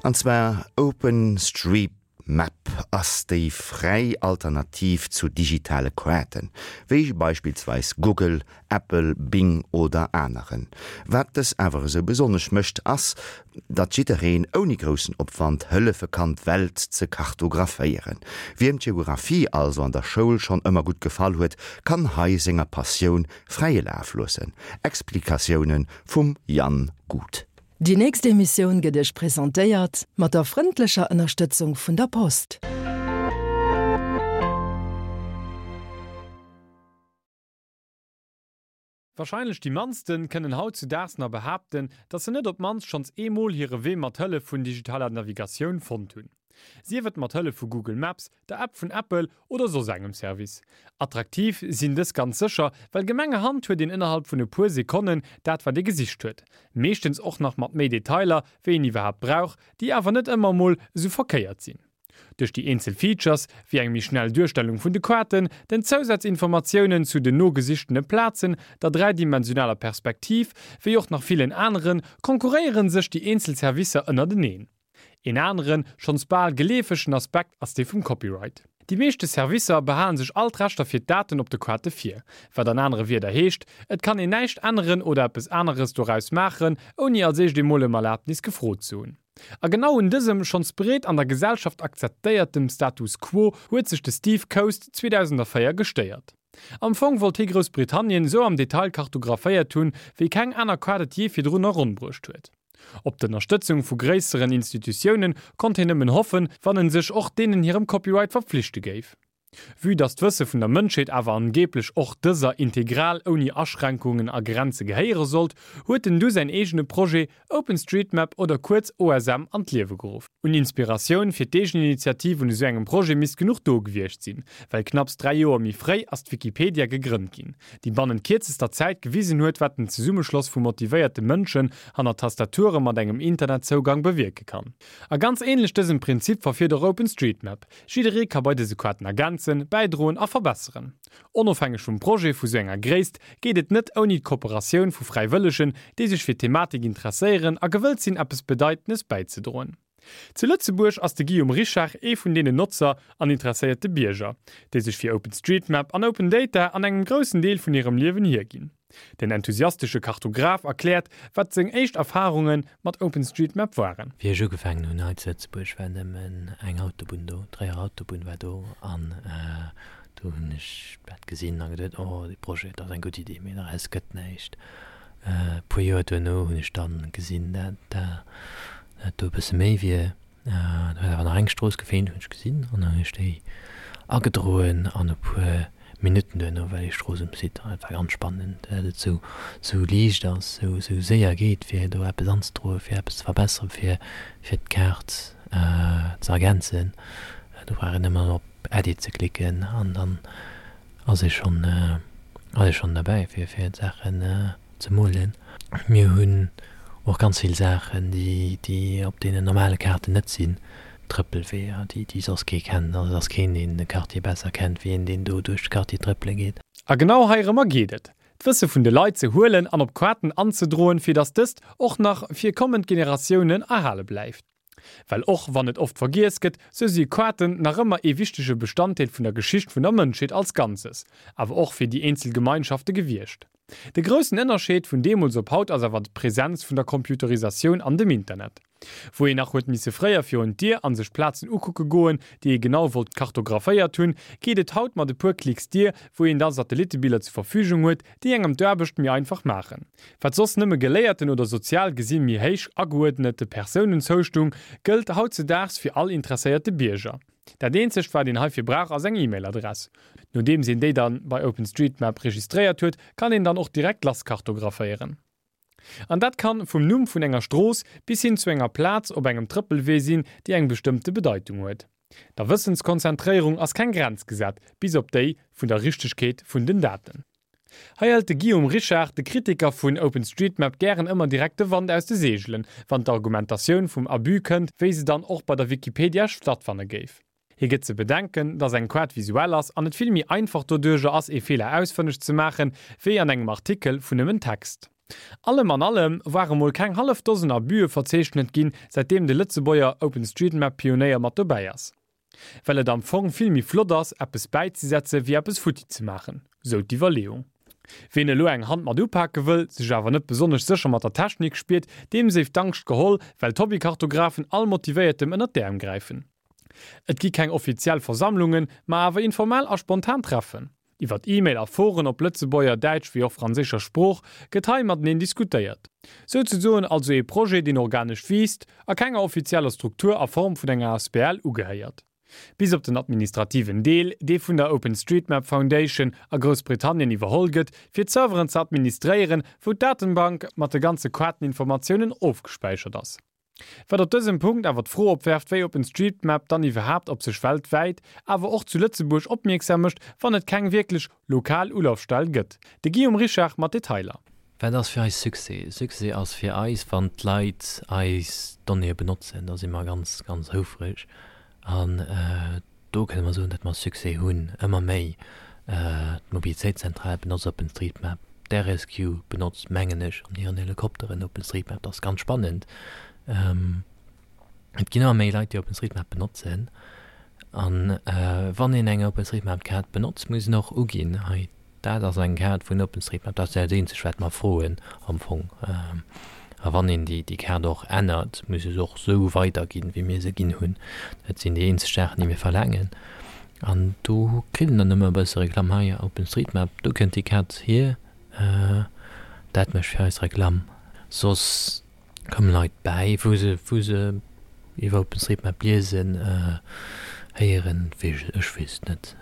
An zwar OpenStreetMap ass déi fräi Alternativ zu digitale Kaarten, wéi beispillsweis Google, Apple, Bing oder aneren. Wat dës awer esou besonnesch mécht, ass, datt jiddereen ouni groussen Opwand hëllefe kann d'Welt ze kartographéieren. Wiem d'Geographie also an der Schoul schonn ëmmer gutt gefall huet, kann hei senger Passioun fräie Laf loossen. Explikatioune vum Yann Gut. Déi nächst Emissioun gëtt Iech presentéiert mat der frëndlecher Ënnerstëtzung vun der Post. Warscheinlech déi mannsten kënnen hautzudaags nach behaapten, dass se net op d'mannst schonns eemol hire Wee mat Hëllef vun digitaler Navigatioun fonnt hunn. Sief et mat Hëllef vu Google Maps, der App vun Apple oder soss engem Service. Attraktiv sinn dës ganz sécher, well gemengerhand huet een ënnerhalb vun e puer Sekonnen dat wat ee gesicht huet. Meeschtens och nach mat méi Detailer wéi een iwwerhaapt brauch, déi awer net ëmmer emol esou verkéiert sinn. Duerch déi eenzel Features, wéi eng méi schnell Duerstellung vun de Kaarten, den Zousazinformatiounen zu den nogesichtene Plazen, der dräidimensionaler Perspektiv, wéi och nach villen aneren, konkurréiere sech déi eenzel Servicer ënnerteneen. Een aneren, schonns bal geleefegen Aspekt ass dee vum Copyright. Déi meeschte Servicer behalen sech all d'Rechter fir d'Daten op de Kaarte vir, wat an anere Wierder heescht, et kann een näischt änneren oder eppes aneres doraus maachen, ouni als éischt emol ëm Erlaabnis gefrot ze hunn. A genau un dësem schonns breet an der Gesellschaft akzeptéiertem Status quo huet sech de Steve Coast 2004 gestéiert. Am Fong wollt hie Groussbritannien esou am Detail kartographéiert hunn, wéi keng aner Kaart et jee virdrun eronnbruecht huet. Op d'Ënnerstëtzung vu gréisseren Institutioune konnt hien nëmmen hoffen, wann en sech och deenen hirem Copyright verpflichte géif. Vue dass d'Wësse vun der Mënschheet awer angeeblech och dëser integral ouni Aschränkungen a Grenze gehéiere sollt, huet en du säin eegene Projet OpenStreetMap oder kuerz OSM an d'Liewe geruff. Un Inspiratioun fir d'Eegeninitiativ un esou engem Projet misst genuch do gewiescht sinn, well knapps 3 Joer méi fréi ass d'Wikipedia gegrënnt ginn, déi bannent kierzester Zäit gewisen huet, wat den Zesummeschloss vu motivéierte Mënschen hanner Tastature mat engem Internetzougang bewierke kann. A ganz ähnlech dësem Prinzip verfiert och OpenStreetMap. Jidderee ka bei dëse Kaarten ergänzen, bäidroen a verbesseren. Onofhängeg vum Projet vu sou enger Gréisst geet et net ouni d'Kooperatioun vu Fräiwëllegen, déi sech fir d'Thematik interesséieren a gewëllt sinn eppes Bedeitendes bäizedroen. Zu Lëtzebuerg ass de Guillaume Richard ee vun deenen Notzer an interesséierte Bierger, déi sech fir OpenStreetMap an Open Data an engem groussen Deel vun hirem Liewen hierginn. Den enthusiastesche Kartograf erkläert, wat seng éischt Erfarunge mat OpenStreetMap waren. Wéi ech ugefaangen hunn hei zu Lëtzebuerg, war nëmmen eng Autobunn do, d'Tréierer Autobunn war do an do hunn ech dat gesinn a geduet, oh dee Projet, dat ass eng gutt Iddi, mee doraus gëtt näischt. E puer Joer duerno hunn ech dann gesinn, dat dat do e bësse méi wier. Do huet awer nach eng Strooss gefeelt, hunn ech gesinn, an dann hunn ech déi agedroen an e puer Minutten duerno war déi Strooss um Site. An et war ganz spannend, dat et sou sou liicht ass, sou sou séier geet, fir do eppes anzedroen, fir eppes ze verbesseren, fir fir d'Kaart ze ergänzen. Do brauch een nëmmen op Edit ze klicken an dann ass ee schonn ass ee schonn derbäi, fir fir d'Saachen ze molen. Mir hunn och ganz vill Saachen, déi, déi op deenen normale Kaarten net sinn, Trëppelweeër, déi, déi soss kee kennt. Also et ass keen, deen de Quartier besser kennt, wéi een, deen do duerch de Quartier trëppele geet. A genau heirëmmer geet et, d'Wësse vun de Leit ze huelen an op Kaarten anzedroen, fir datt dëst och nach fir kommend Generatiounen erhale bleift. Well och wann et oft vergiess gëtt, sou si Kaarten nach ëmmer ee wichtege Bestanddeel vun der Geschicht vun der Mënschheet als Ganzes, awer och fir déi eenzel Gemeinschafte gewiescht. De groussen Ënnerscheed vun deemools op haut ass awer d'Präsenz vun der Computerisatioun an dem Internet. Wou een nach huet misse fréier virun d'Dier an sech Plazen ukucke goen, déi ee genau wollt kartographéiert hunn, geet et haut mat e puer Klicks dier, wou een da Satellitebiller zur Verfügung huet, déi engem d'Aarbecht méi einfach maachen. Wat soss nëmme geléierten oder sozial gesi méi héich ageuerdnete Persounen zoustung, gëllt hautzedaags fir all interesséierte Bierger. Dat eenzegt wat een heifir brauch ass eng E-Mail-Adress. Nodeems een déi dann bei OpenStreetMap registréiert huet, kann een dann och direkt lass kartographéieren. An dat kann vum Numm vun enger Strooss bis hin zu enger Plaz op engem Trëppelwee sinn, déi eng bestëmmte Bedeitung huet. Der Wëssenskonzentréierung ass keng Grenz gesat, bis op déi vun der Richtegkeet vun den Daten. Hei hëlt de Guillaume Richard, de Kritiker vun OpenStreetMap, gären ëmmer direkt de Wand aus de Seegelen, wann d'Argumentatioun vum Abus kënnt, wéi se dann och bei der Wikipedia stattfanne géif. Hie gëtt ze bedenken, dass eng Kaart visuell ass an et vill méi einfach doduerjer ass, ee Feeler ausfënneg ze maachen, wéi an engem Artikel vun nëmmen Text. Allem an allem ware mol keng hallef Dosen Abüe verzeechnet ginn, säitdeem de Lëtzebuerger OpenStreetMap-Pionéier mat dobäi ass. Well et am Fong vill méi flott ass, eppes bäizesetze wéi eppes futti ze maachen, sou d'Iwwerleeung. Ween elo eng Hand mat upake wëll, sech awer net besonnesch sécher mat der Technik spiert, deem séif d'Angscht geholl, well d'Hobbykartografen all Motivéiertem ënnert d'Äerm gräifen. Et gi keng offiziell Versammlungen, ma awer informell a spontan Treffen. Iwwert E-Mail a Foren op Lëtzebuerger, Däitsch wéi och franséischer Sprooch gëtt hei mateneen diskutéiert. Souzesoen also ee Projet, deen organesch wiisst a kenger offizieller Struktur a Form vun enger asbl ugehéiert. Bis op den administrativen Deel, dee vun der OpenStreetMap Foundation a Groussbritannien iwwerholl gëtt, fir d'Serveren ze administréieren, wou d'Datenbank mat de ganze Kaarteninformatiounen ofgespäichert ass. Wat op dësem Punkt awer d'Fro opwerft, wéi OpenStreetMap dann iwwerhaapt op sech weltwäit, awer och zu Lëtzebuerg opmierksam mécht, wann et keng wierklech lokal Ulafstell gëtt. De Guillaume Richard mat Detailer. Wat ass fir eis Succès? Succès ass fir eis, wann d'Leit eis Donnéeë benotzen. Da si mer ganz, ganz houfreg. An do kënne mer soen, datt mer Succès hunn, ëmmer méi. D'Mobilitéitszentral benotzt OpenStreetMap, d'RSQ benotzt, mengen ech, an hiren Helikopteren OpenStreetMap. Dat ass ganz spannend. Et ginn ëmmer méi Leit, déi OpenStreetMap benotzen. An wann een eng OpenStreetMap-Kaart benotzt, muss een och uginn, hei Dat ass eng Kaart vun OpenStreetMap. Dat ass dat eenzegt, wat mer froen am Fong. A wann een déi Kaart och ännert, muss e se och esou weiderginn, wéi mir se ginn hunn. Dat sinn déi eenzeg Saachen, déi mir verlaangen. An do kritt een dann ëmmer e bësse Reklamm, Hei, OpenStreetMap, do kënnt déi Kaart hier. Dat mécht fir eis Reklamm. Soss komme Leit bäi, wou se, wou se iwwer OpenStreetMap liesen, héieren. Ech weess et net.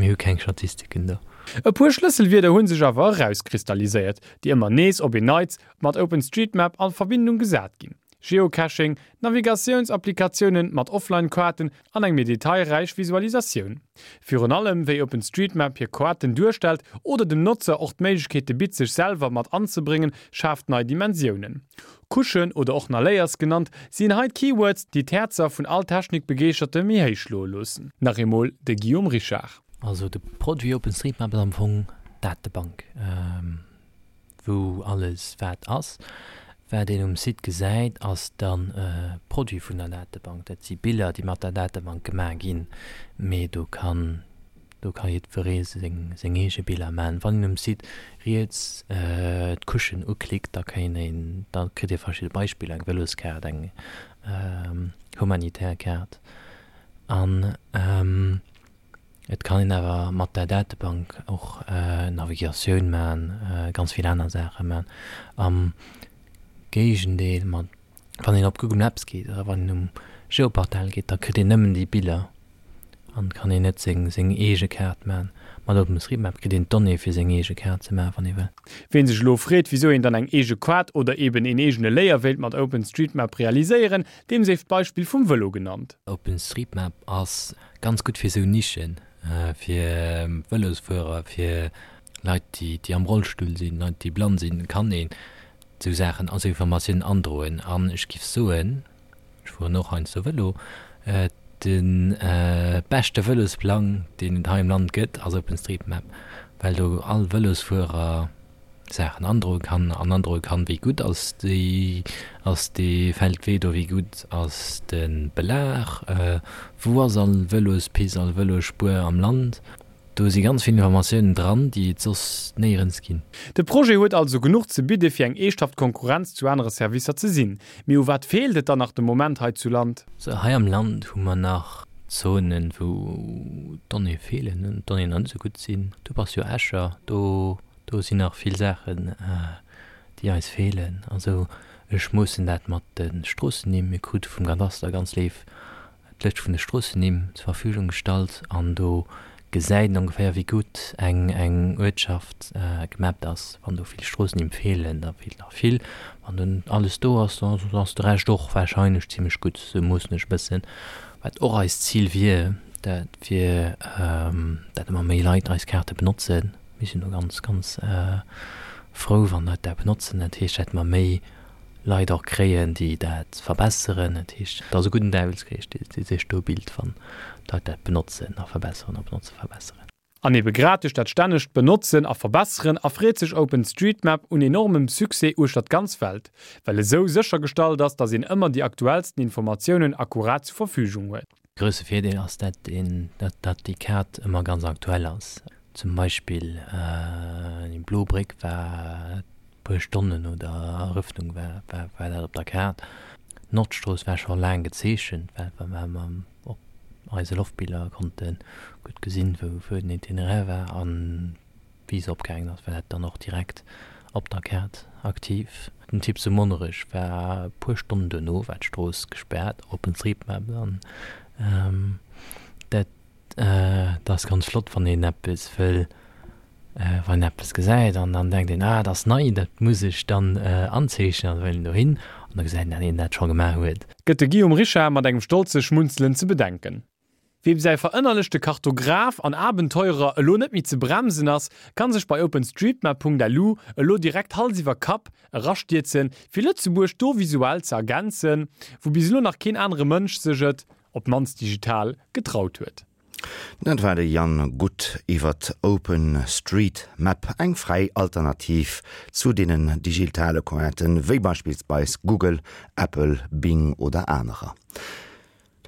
Mir hu keng Statistiken do. E puer Schlësselwierder hu sech awer erauskristalliséiert, déi ëmmer nees op een Neits mat OpenStreetMap a Verbindung gesat ginn, Geocaching, Navigatiounsapplikatiounen mat Offline-Kaarten an eng méi detailräich Visualisatioun. Virun allem wéi OpenStreetMap hir Kaarten duerstellt oder dem Notzer och d'Méiglechkeete bitt sech selwer mat anzebréngen, schaaft nei Dimensiounen. Couchen oder och nach Layers genannt, sinn hei d'Keywords, déi d'Häerzer vun all Technikbegeeschterte méi héich schloe loossen. Nach eemol de Guillaume Richard. Also de Produit OpenStreetMap ass am Fong d'Datebank, wou alles wat ass. Wat een um Site gesäit, ass dann e Produit vun der Datebank. Dat si Biller, déi mat der Datebank gemaach ginn, mee do kann Do ka jiddweree seng eege Biller man. Wann een um Site riets d'Couchen uklickt, da kéint een, da kritt ee verschidde Beispiller, eng Vëloskaart, eng humanitär Kaart. An et kann een awer mat der Datebank och Navigatioun man, ganz vill aner Saache man. Am Géigendeel mat Wann een op Google Maps geet oder wann een um Geoportal geet, da kritt een nëmmen déi Biller an kann een net seng seng eege Kaart maachen. Mat OpenStreetMap kritt een d'Donnéeë fir seng eege Kaart ze maachen, wann ee wëll. Ween sech elo freet, wisou een dann eng eege Kaart oder eben een eegene Layer wéilt mat OpenStreetMap realiséieren, deem séif d'Beispill vum Vëlo genannt. OpenStreetMap ass ganz gutt fir esou Nischen, fir Vëlosfuerer, fir Leit déi déi am Rollstull sinn, Leit déi blann sinn, kann een esou Saachen, esou Informatiounen androen. An ech giff soen, ech fueren och heiansdo Vëlo, de beschte Vëlosplang, deen et hei am Land gëtt, ass OpenStreetMap, well do all Vëlosfuerer Saachen androe kann an androe kann, wéi gutt ass déi, ass dee Feldwee do, wéi gutt ass de Belag, wou ass all Vëlospist, all Vëlosspuer am Land. Do si ganz vill Informatiounen dran, déi et soss néierens ginn. De Projet huet also genuch ze bidde fir eng eeschthaft Konkurrenz zu anere Servicer ze sinn. Mee u wat feelt et dann nach de Moment hei zu Land? Sou, hei am Land hu mer nach Zonen, wou d'Donnéeë feelen an d'Donnéeën nach net esou gutt sinn. Du bass jo Escher, do, do sinn nach vill Saachen, déi eis feelen. Also ech moossen dat mat de Stroossennimm. Mir krute vum Kadaster ganz léif d'Lëscht vun de Stroossennimm zur Verfügung gestallt an do gesäit een ongeféier wéi gutt eng eng Uertschaft gemappt ass. Wann do vill Stroossennimm feelen, da feelt nach vill. Wann do alles do ass, da ass de Rescht och warscheinlech zimmlech gutt. Sou moossen ech e bëssen. Wat och eist Zil wier, dat wier, dat ëmmer méi Leit eis Kaarte benotzen. Mir sinn do ganz, ganz frou, wann Leit dat benotzen. Dat heescht, dat mer méi Leit och kréien, déi dat verbesseren. Dat heescht, et ass e gudden Däiwelskrees, dee sech do bilt, wann d'Leit dat benotzen a verbesseren a benotzen, verbesseren. An ebe grad duerch dat stännegt Benotzen a Verbesseren erfreet sech OpenStreetMap un enormem Succès uechter d'ganz Welt, well esou séchergestallt ass, datt een ëmmer déi aktuellsten Informatiounen akkurat zur Verfügung huet. Grousse Virdeel ass dat een, dat déi Kaart ëmmer ganz aktuell ass. Zum Beispill déi blo Bréck war puer Stonnen no der Erëffnung war war dat op der Kaart. D'Nordstrooss war scho laang gezeechent, well mer Op eise Loftbiller konnte gutt gesinn, wou den Itinéraire war an wéi se opgaangen ass, war dat dann och direkt op der Kaart aktiv. Den Typ zu Monnerech war e puer Stonnen duerno war d'Strooss gespaart, OpenStreetMap, an dat ass ganz flott, wann een eppes wëll Wann een eppes gesäit an dann denkt een, ah, dat ass nei, dat muss ech dann anzeechnen, an da wëll een dohin an da gesäit een, dat een dat scho gemaach huet. Gëtt de Guillaume Richard mat engem stolze Schmunzelen ze bedenken. Weem säi verënnerlechte Kartograph an Abenteurer elo net méi ze bremsen ass, kann sech bei openstreetmap.lu elo direkt Hals iwwer Kapp erastierzen, fir Lëtzebuerg do visuell ze ergänzen, wou bis elo nach keen anere Mënsch sech et, op d'mannst digital, getraut huet. Dat war de Yann Guth iwwert Open Street Map, eng fräi Alternativ zu deenen digitale Cointen, wéi beispillsweis Google, Apple, Bing oder anerer.